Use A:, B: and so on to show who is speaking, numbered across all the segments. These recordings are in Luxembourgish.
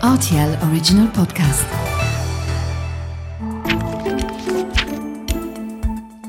A: Rtl Original Podcast.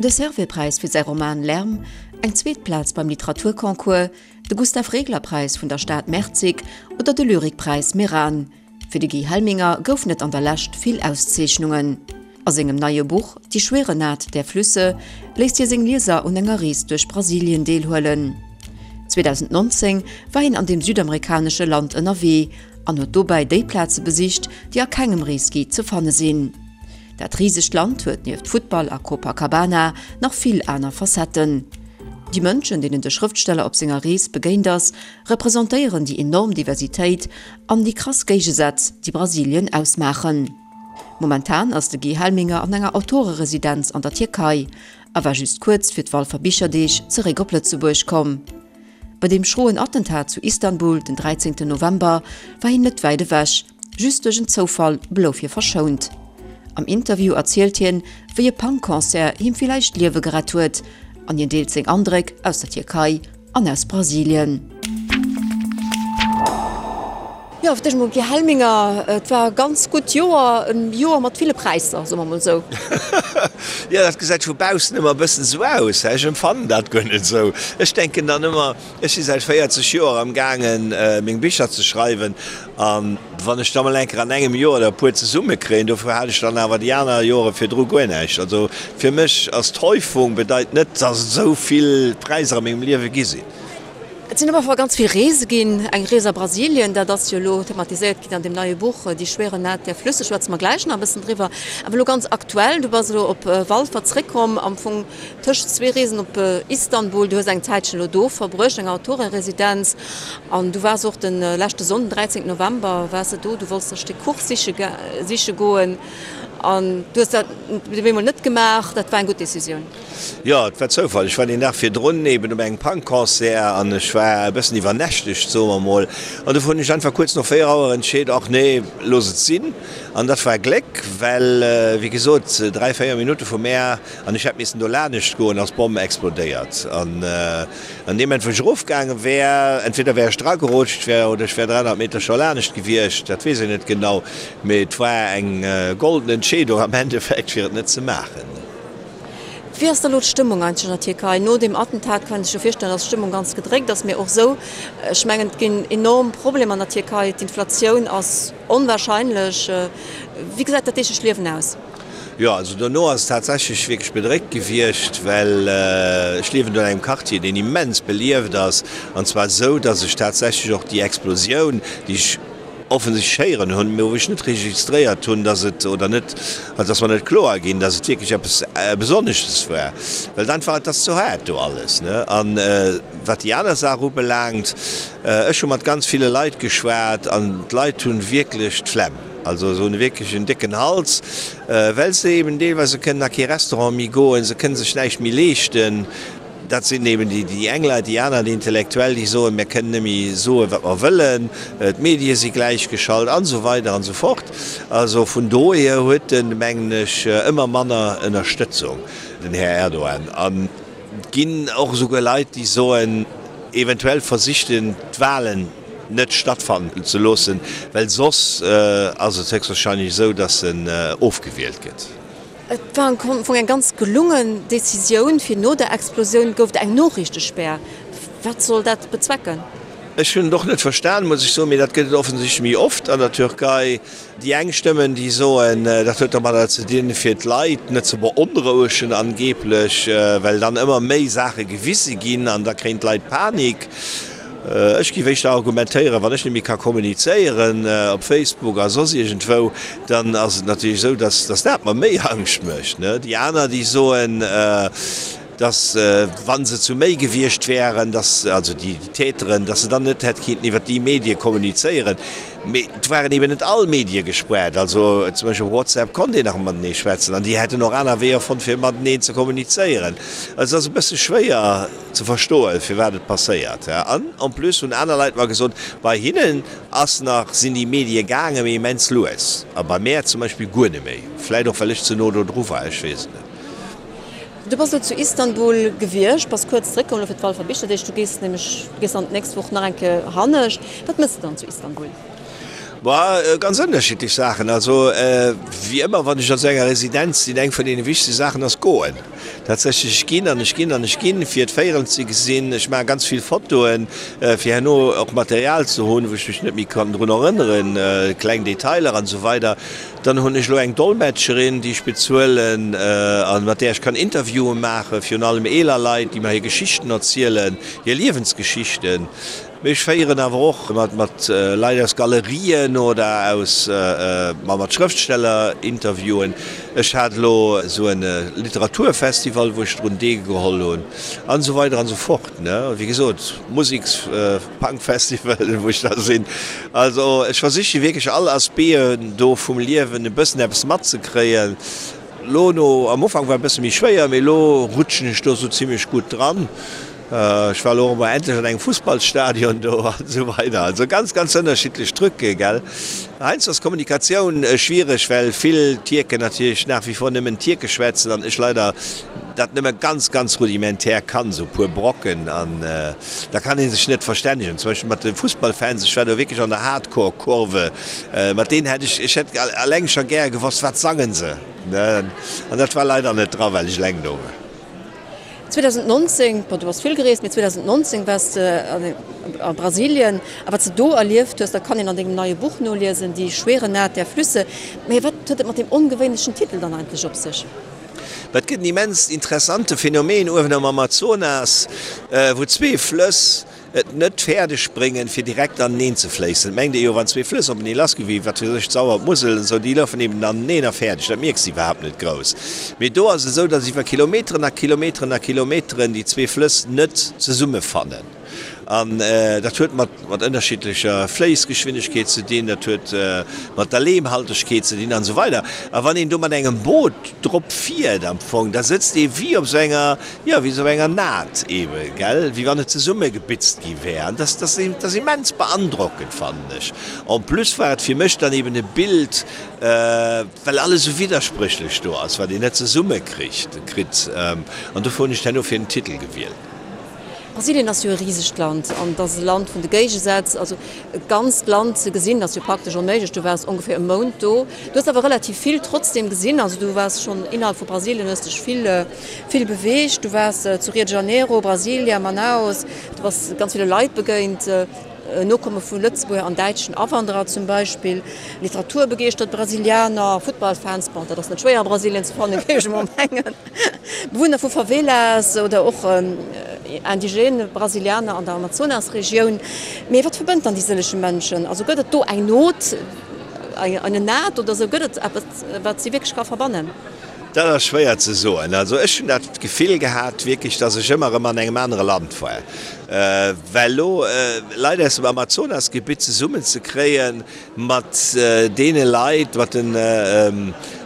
A: De Servais-Präis fir säi Roman Lärm, eng zweet Plaz beim Literaturconcours, de Gustav-Regler-Präis vun der Stad Merzig oder de Lyrikpräis Meran. Fir de Guy Helminger goufen et an der Lescht vill Auszeechnungen. A sengem neie Buch Die schwere Naht der Flüsse léisst hie seng Lieser un enger Rees duerch Brasilien deelhuelen. 2019 war hien an deem südamerikanesche Land ënnerwee an huet dobäi déi Plaze besicht, déi a kengem Reesguide ze fanne sinn. Dat risegt Land huet nieft Futtball a Copacabana nach vill aner Facetten. Déi Mënschen, deenen de Schrëftsteller op senger Rees begéint ass, representéieren déi enorm Diversitéit an déi krass Géigesätz, déi Brasilien ausmaachen. Momentan ass de Guy Helminger an enger Autoreresidenz an der Tierkei a war just kuerz fir d'Walfer Bicherdeeg zeréck op Lëtzebuerg komm. Bei deem schroen Attentat zu Istanbul den 13 November war hien net wäit ewech, just duerch en Zoufall blouf hie verschount. Am Interview erzielt hien, wéi e Punk-Concert him villäicht d'Liewe gerett huet an hien deelt seng Andréck aus der Tierkei an aus Brasilien. Jo, fir d'éischt emol Guy Helminger, et war e ganz gutt Joer, e Joer mat ville Präisser, soe mer emol esou.
B: Jo, dat gesäit vu baussen ëmmer e bëssen esou aus, hä? Ech empfannen dat guer net esou. Ech denken dann ëmmer, ech si säit 40 Joer am gaangen, meng Bicher ze schreiwen an wann ech da mol eng Kéier an engem Joer der e puer zesummekréien, dofir hat ech dann awer déi aner Jore virdru guer näischt. Also fir mech ass d'Häufung bedeit net, dass et esou vill Präisser a mengem Liewe gi sinn.
A: Et sinn op alle Fall ganz vill Reese ginn. Eng Rees a Brasilien, dat ass jo elo thematiséiert ginn an deem neie Buch Die schwere Naht der Flüsse, schwätze mer gläich nach e bëssen driwwer. Awer elo ganz aktuell, du bass elo op Walfer zréckkomm, am Fong tëscht zwee Reesen op Istanbul. Du hues eng Zäitchen elo do verbruecht, eng Autoreresidenz. An du waars och de leschte Sonnden, 13 November, waars de do. Du wollts e Stéck Kuch siche siche goen an du hues dat op eemol net gemaach. Dat war eng gutt Decisioun.
B: Jo, et war Zoufall. Ech war deen Dag virdrun eben op engem Punk-Concert an ech war e bëssen iwwernächtegt, soe mer mol. An dofir hunn ech einfach kuerz no 4 Auer entscheet, ach nee, looss et sinn. An dat war Gléck, well wéi gesot, 3, 4 Minutte vu mär an ech hätt missen do lanescht goen, ass d'Bomm explodéiert. An an deem Moment, wou ech erofgaange wär, entweder wär ech dragerutscht wär oder ech wär 300 Meter scho lanescht gewiescht, dat weess een net genau, mee et war eng golden Entscheedung am Endeffekt, fir et net ze maachen.
A: Wéi ass da lo d'Stëmmung eigentlech an der Tierkei? No deem Attentat kann een sech jo virstellen, datt d'Stëmmung ganz gedréckt ass, mee och esou, ech mengen, et ginn enorm Problemer an der Tierkei, d'Inflatioun ass onwahrscheinlech. Wéi gesäit dat deeglecht Liewen aus?
B: Jo, also dono ass et tatsächlech wierklech bedréckt gewiescht, well ech liewen do an engem Quartier, deen immens belieft ass, an zwar esou, datt ech tatsächlech och déi Explosioun, déi ech, offensichtlech héieren hunn, mä wou ech net registréiert hunn, dass et, oder net, also dass mer net kloer ginn, dass et wierklech eppes Besonnesches war, well et einfach, et ass ze haart do alles, ne. An wat déi aner Saach ubelaangt, ech hu mat ganz ville Leit geschwat an d'Leit hu wierklech d'Flemm, also se hunn wierklech en décken Hals, well se eben deelweis, se kënnen a kee Restaurant méi goen, se kënne sech näischt méi leeschten. Dat sinn eben déi eng Leit. Déi aner, déi Intellektuell, déi soen, mir kënnen net méi soen, wat mer wëllen, d'Medie si gläichgeschalt an esou weider an esou fort. Also vun dohier huet en, mengen ech, ëmmer manner Ënnerstëtzung, den Här Erdogan. An et ginn och esouguer Leit, déi soen, eventuell versicht en, d'Wahlen net stattfannen ze loossen, well soss ass et héchstwahrscheinlech esou, datt en ofgewielt gëtt.
A: Et war am Fong eng ganz gelungen Decisioun, fir no der Explosioun gouf et eng Noriichtespär. Wat soll dat bezwecken?
B: Ech hunn et och net verstan, muss ech soen, mee dat gëtt et offensichtlech méi oft an der Türkei. Déi eng Stëmmen, déi soen, dat huet domadder ze dinn, fir d'Leit net ze beonrouegen angeblech, well dann ëmmer méi Saache gewise ginn an da kréien d'Leit Panik. Ech géif éischter argumentéieren, wann ech net méi ka kommunizéieren op Facebook a soss iergendwou, dann ass et natierlech esou, dass dass dat mer méi Angscht mécht. Déi aner, déi soen, dass wa se zu méi gewiescht wären, dass, also déi Täteren, dass se dann net hätt kinnten iwwert déi Medie kommunizéieren. Mee et waren eben net all Medie gespaart. Also zum Beispill op WhatsApp konnt een nach matenee schwätzen an déi hätten och aner Weeër fonnt, fir mateneen ze kommunizéieren. Also et ass e bësse schwéier. ze verstoen, firwat et passéiert. An en plus hunn aner Leit mer gesot, bei hinnen ass nach, sinn déi Medie gaangen, mee immens lues. A bei mär zum Beispill guer net méi. Vläit och well ech ze no do dru war, ech weess et net.
A: Du bass elo zu Istanbul gewiescht, bass kuerz zeréckkomm elo fir d'Walfer Bicherdeeg. Du gees nämlech, du gees dann d'nächst Woch nach eng Kéier hannescht. Wat méchs de dann zu Istanbul?
B: Boah, ganz ënnerschiddlech Saachen. Also wéi ëmmer, wann ech an esou enger Residenz sinn, eng vun deene wichtegste Saachen ass goen. Tatsächlech, ech ginn an ech ginn an ech ginn, fir d'Véierel ze gesinn. Ech maache ganz vill Fotoen, fir herno och Material ze hunn, wou ech mech net méi kann drun erënneren, kleng Detailer an esou weider. Dann hunn ech elo eng Dolmetscherin, déi ech bezuelen a mat där ech kann Interviewen maachen, virun allem eeler Leit, déi mer hir Geschichten erzielen, hir Liewensgeschichten. Mee ech féieren awer och mat Leit aus Galerien oder aus, ma mat Schrëftsteller Interviewen. Ech hat elo esou e Literaturfestival, wou ech drun deelgeholl hunn an esou weider an esou fort, ne. Wéi gesot, Museks-, Punkfestival, wou ech da sinn. Also ech versiche wierklech all Aspecten do vum Liewen e bëssen eppes matzekréien. Lo no, am Ufank war e bësse méi schwéier, mee elo rutschen ech do esou zimlech gutt dran. Ech war elo och emol endlech an engem Fussballstadion do an esou weider. Also ganz, ganz ënnerschiddlech Trucke, gell. Heiansdo ass d'Kommunikatioun schwiereg, well vill Tierken natierlech nach wie vor nëmmen Tierkesch schwätzen an ech leider dat nëmme ganz, ganz rudimentär kann, esou e puer Brocken an da kann ee sech net verstännegen. Zum Beispill mat de Fussballfans, ech war do wierklech an der Hardcore-Kurve, mat deenen hätt ech, ech hätt eleng scho gäre gewosst, wat sangen se, ne. An dat war leider net dra, well ech eleng do war.
A: 2019, bon du bass vill gereest, mee 2019 waars de a Brasilien a wat s de do erlieft hues, dat kann een an dengem neie Buch noliesen, Die schwere Naht der Flüsse. Mee wat huet et mat deem ongewéinlechen Titel dann eigentlech op sech?
B: Et gëtt en immens interessante Phänomen uewen am Amazonas, wou zwee Flëss et net fäerdeg bréngen, fir direkt aneneen ze fléissen. Et mengt ee jo, wann zwee Flëss openee lassginn, wéi wat weess ech, d'Sauer, d'Musel an esou, déi lafen eben aneneen a fäerdeg, dat mierks de iwwerhaapt net grouss. Mee do ass et esou, datt iwwer Kilometeren a Kilometeren a Kilometeren déi zwee Flëss net zesummefannen. An dat huet mat mat ënnerschiddlecher Fléissgeschwindegkeet ze dinn, dat huet mat der Leemhaltegkeet ze dinn an esou weider. A wann een do mat engem Boot drop fiert am Fong, da sëtzt ee wéi op esou enger, jo, wéi esou enger Naht eebe, gell, wéi wann et zesummegebitzt gi wär. An dat ass immens beandrockend, fannen ech. En plus war et fir mech dann eeben e Bild, well alles esou widderspréchlech do ass, wat een net zesummekricht, kritt. An dofir hunn ech herno fir den Titel gewielt.
A: Brasilien ass jo e risegt Land an et ass e Land vun de Géigesätz. Also e ganzt Land ze gesinn ass jo praktesch onméiglech. Du waars ongeféier e Mount do. Du hues awer relativ vill trotzdem gesinn. Also du waars schonn innerhalb vu Brasilien, hues dech vill, vill beweegt. Du waars zu Rio de Janeiro, Brasilia, Manaus. Du bass ganz ville Leit begéint. Nokomme vu Lëtzebuerger an däitschen Awanderer zum Beispill, literaturbegeeschtert Brasilianer, Futtballfans, bon dat ass net schwéier a Brasilien ze fannen, géif ech emol mengen, Bewunner vu Favelas oder och indigène Brasilianer an der Amazonasregioun. Mee wat verbënnt dann déi sëllege Mënschen? Also gëtt et do eng Not, eine Naht oder esou? Gëtt et eppes, wat si wierklech ka verbannen?
B: Dat ass schwéier ze soen. Also ech hunn dat Gefill gehat wierklech, datt ech ëmmer erëm an engem anere Land war. Well elo Leit aus dem Amazonasgebitt zesummen ze kréie mat deene Leit, mat den,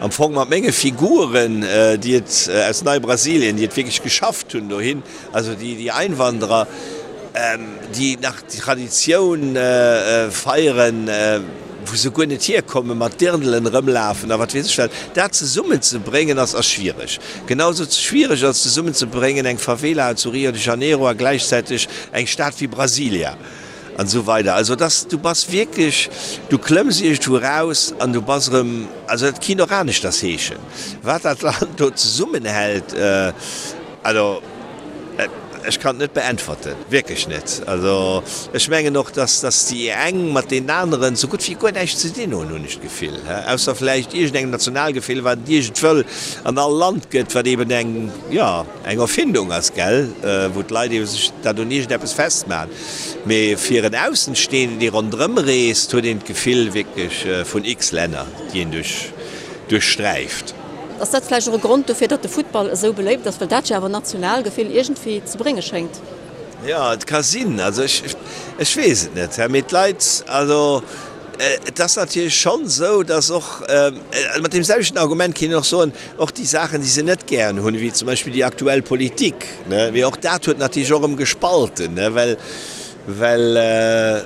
B: am Fong mat menge Figuren, déi et aus Neibrasilien, déi et wierklech geschafft hunn dohin, also déi Einwanderer, déi nach d'Traditioun feieren, wou se guer net hierkommen, mat Dirndlen erëmlafen a wat weess ech wat, dat zesummen ze bréngen ass ass schwiereg. Genau sou schwiereg ass zesummen ze bréngen eng Favela zu Rio de Janeiro a gläichzäiteg eng Stad wéi Brasilia an esou weider. Also et ass, du bass wierklech, du klëmms iergendwou eraus an du bass erëm, also dat kinnt och aneschters heeschen, wat dat Land do zesummenhält, also. Ech kann et net beäntwerten, wierklech net. Also ech mengen och, dass dass déi eng mat deenen aneren esou gutt wéi guer näischt ze dinn hunn, hunn ech d'Gefill, ausser vläicht iergendengem Nationalgefill, wat et iergendwëll an all Land gëtt, wat eben eng, jo, eng Erfindung ass, gell, wou d'Leit ebe sech dat un iergendeppes festmachen. Mee fir en Aussenstehenden, dee ronderëm reest, huet een d'Gefill wierklech vun x Länner, déi een duerch duerchsträift.
A: Ass dat vläicht och e Grond dofir, datt de Futtball esou beléift ass, well dat jo awer Nationalgefill iergendwéi ze brénge schéngt?
B: Jo, et ka sinn. Also ech, ech weess et net. Mee d'Leit, also et ass natierlech schonn esou, datt och, mat deem selwechten Argument kéint een och soen, och déi Saachen, déi se net gären hunn, wéi zum Beispill déi aktuell Politik, ne, mee och dat huet natierlech och erëm gespalten, ne, well, Well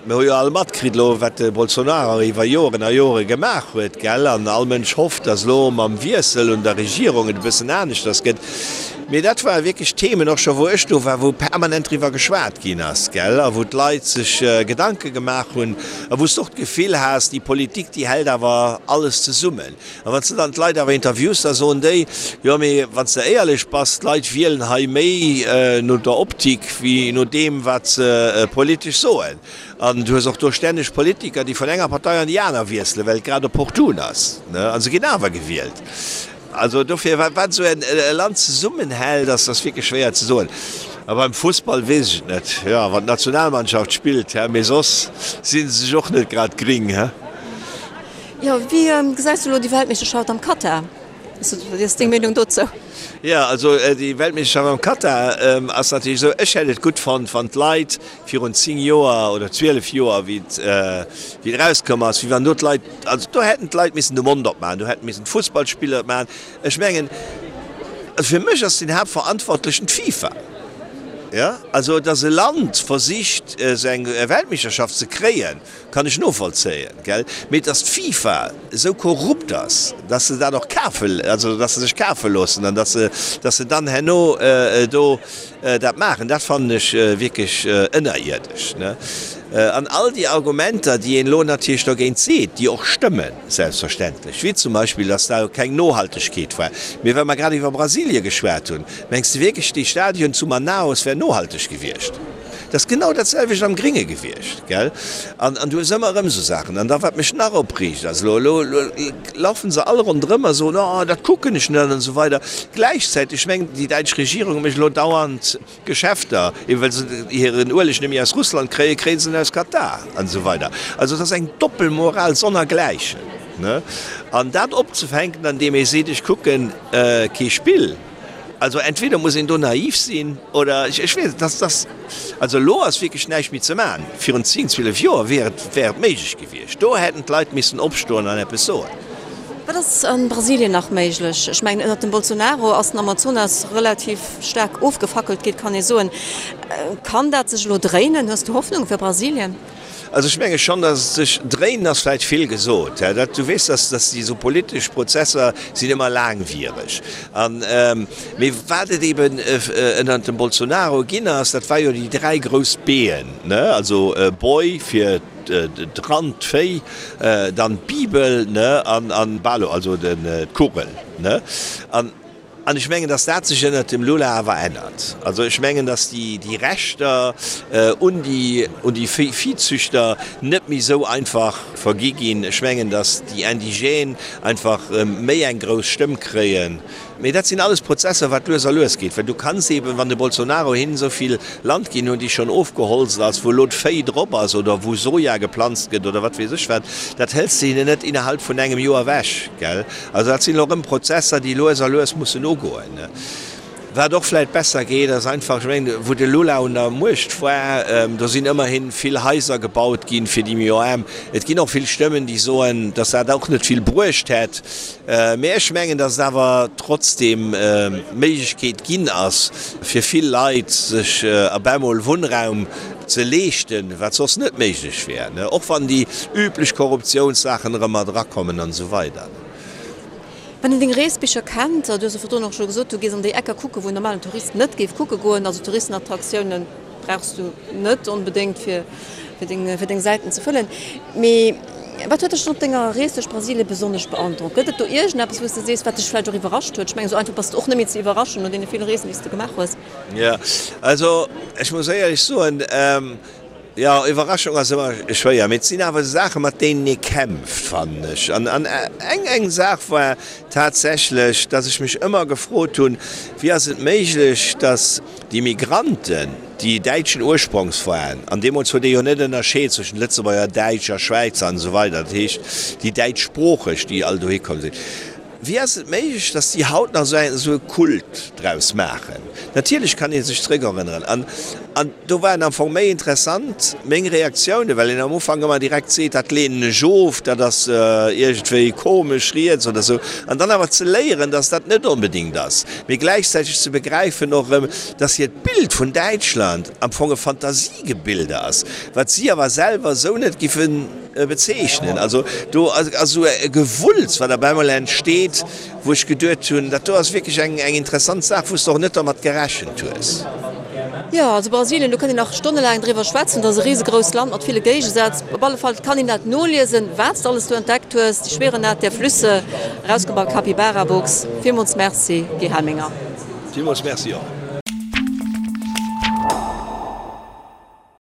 B: mir hu jo all matkritt elo, wat de Bolsonaro iwwer Joren a Jore gemaach huet, gell? An all Mënsch hofft, datt elo mam Wiessel un der Regierung et e bëssen aneschters gëtt. Mee dat ware wierklech Themen, och scho wou ech do war, wou permanent driwwer geschwat ginn ass, gell, a wou d'Leit sech Gedanke gemaach hunn a wou s de och d'Gefill has, déi Politik, déi hält awer alles zesummen. A wann s de dann d'Leit awer interviews, da soen déi, jo mee wann s de éierlech bass, d'Leit wielen hei méi no der Optik wéi no deem, wat se politesch soen. An du hues och do stänneg Politiker, déi vun enger Partei an déi aner wiesselen, well et grad opportun ass, a se ginn awer gewielt. Also dofir, wat esou e Land zesummenhält, ass ass wierklech schwéier ze soen. A beim Fussball weess ech et net. Jo, wann d'Nationalmannschaft spillt, hä, mee soss si se sech och net grad gring, hä.
A: Jo, wéi gesäis du elo déi Weltmeeschterschaft am Katar? Wéi ass deng Meenung dozou?
B: Jo, also déi Weltmeeschterschaft am Katar ass natierlech esou, ech hätt et gutt fonnt, wann d'Leit virun 10 Joer oder 12 Joer, wéi et wéi et erauskomm ass, wéi wann do d'Leit, also do hätten d'Leit missen de Mond opmaachen, do hätten missen d'Fussballspiller et maachen. Ech mengen, also fir mech ass den Haaptverantwortlechen d'FIFA. Jo, also datt e Land versicht esou eng Weltmeeschterschaft ze kréien, kann ech novollzéien, gell, mee datt d'FIFA esou korrupt ass, datt se dat och kafe, also datt se sech kafe loossen an datt se, datt se dann herno do dat maachen, dat fannen ech wierklech ënnerierdesch, ne. An all déi Argumenter, déi een elo natierlech dogéint seet, déi och stëmmen, selbstverständlech, wéi zum Beispill, datt da keng Nohaltegkeet war, mee well mer grad iwwer Brasilie geschwat hunn, mengs de wierklech, dee Stadion zu Manaus wär nohalteg gewiescht? Dat ass genau dat selwecht am Gringe gewiescht, gell? An, an du hues ëmmer erëm esou Saachen. An da wat mech nach opreegt ass, elo, elo, elo laufen se all ronderëm a soen, oh, dat kucken ech net an esou weider. Gläichzäiteg mengt déi däitsch Regierung mécht elo dauernd Geschäfter, eben well se hiren Ueleg net méi aus Russland kréien, kréie se en aus Katar an esou weider. Also et ass eng Doppelmoral sonnergläichen, ne? An dat opzefänken, andeem ee seet, ech kucken kee Spill, Also entweder muss een do naiv sinn oder ech weess et, dass dass also elo ass wierklech näischt méi ze maachen. Virun 10, 12 Joer wier et wär et méiglech gewiescht. Do hätten d'Leit missen opstoen an eppes soen.
A: Wat ass a Brasilien nach méiglech? Ech mengen ënnert dem Bolsonaro ass den Amazonas relativ staark ofgefackelt ginn, kann ee soen. Kann dat sech elo dréinen? Hues du Hoffnung fir Brasilien?
B: Also ech menge schonn, datt et sech, dréinen ass vläicht vill gesot, hä, dat, du weess, datt, datt déi esou politesch Prozesser sinn ëmmer laangwiereg. An, mee wat et eben ënnert dem Bolsonaro ginn ass, dat war jo déi 3 grouss B'en, ne, also Boi fir d'Rand, d'Véi, dann d'Bibel, ne, an, an Balo, also den, d'Kugel, ne. An. An ech mengen, dass dat sech ënnert dem Lula awer ännert. Also ech mengen, dass déi, déi Rechter un déi, un déi Viehzüchter net méi esou einfach vergi ginn. Ech mengen, dass déi Indigènes einfach méi eng grouss Stëmm kréien. Mee dat sinn alles Prozesser, wat lues a lues geet. Well du kanns eeben, wann de Bolsonaro hinnen esou vill Land ginn huet, déi schonn ofgeholzt ass, wou elo d'Véi drop ass oder wou Soja geplanzt gëtt oder wat weess ech wat, dat hëls de hinnen net innerhalb vun engem Joer ewech, gell. Also dat sinn elo erëm Prozesser, déi lues a lues mussen ugoen. Wat och vläicht besser geet, ass einfach, ech mengen, wou de Lula un der Muecht war, do sinn ëmmerhi vill Haiser gebaut ginn fir déi méi Aarm. Et ginn och vill Stëmmen, déi soen, datt dat och net vill bruecht hätt. Mee ech mengen, datt et awer trotzdeem d'Méiglechkeet ginn ass, fir vill Leit sech op emol Wunnraum ze leeschten, wat soss net méiglech wär, och wann déi üblech Korruptiounssaachen erëm mat erakommen an esou weider.
A: Wann een deng Reesbicher kennt, du hues jo virdrun och scho gesot, du gees an déi Ecker kucken, wou en normalen Tourist net géif kucke goen, also Touristenattraktiounen brauchs du net onbedéngt fir deng, fir deng Säiten ze fëllen. Mee wat huet dech dann op denger Rees duerch Brasilien besonnesch beandrockt? Gëtt et do iergendeppes, wou s de sees, wat dech vläicht och iwwerrascht huet? Ech mengen, esou einfach bass de och net méi ze iwwerraschen no deene ville Reesen, déi s de gemaach hues.
B: Jo, also ech muss éierlech soen, jo, Iwwerraschung ass ëmmer schwéier, mee et sinn awer Saachen, mat deenen ee kämpft, fannen ech. An eng eng Saach war tatsächlech, dass ech mech ëmmer gefrot hunn, Wéi ass et méiglech, dass déi Migranten, déi däitschen Ursprongs waren, an deemools huet ee jo net ënnerscheet zwëschent Lëtzebuerger, Däitsch a Schwäizer an esou weider, dat heescht déi Däitschsproocheg, déi all dohi komm sinn, Wéi ass et méiglech, dass déi haut nach esou e Kult draus maachen? Natierlech kann ee sech zréckerënneren. An An do waren am Fong méi interessant meng Reaktiounen, well een am Ufank ëmmer direkt seet, dat leenen ech of, dat ass iergendwéi komesch riets oder esou. An dann awer ze léieren, dass dat net onbedéngt ass, mee gläichzäiteg ze begräifen och erëm, dass hiert Bild vun Däitschland am Fong e Fantasiegebilde ass, wat si awer selwer esou net giffe bezeechnen. Also do ass esou e Gewulls, wat op eemol entsteet, wou ech geduet hunn, dat do ass wierklech eng interessant Saach, wou s de och net dermat gerechent hues.
A: Jo, also Brasilien, do kënnt een nach stonnelaang driwwer schwätzen. Dat ass e risegrousst Land mat ville Géigesätz. Op alle Fall kann een dat noliesen, wat s de alles do entdeckt hues, Die schwere Naht der Flüsse, erausginn bei Capybara Books. Villmools Merci, Guy Helminger.
B: Villmools Merci och.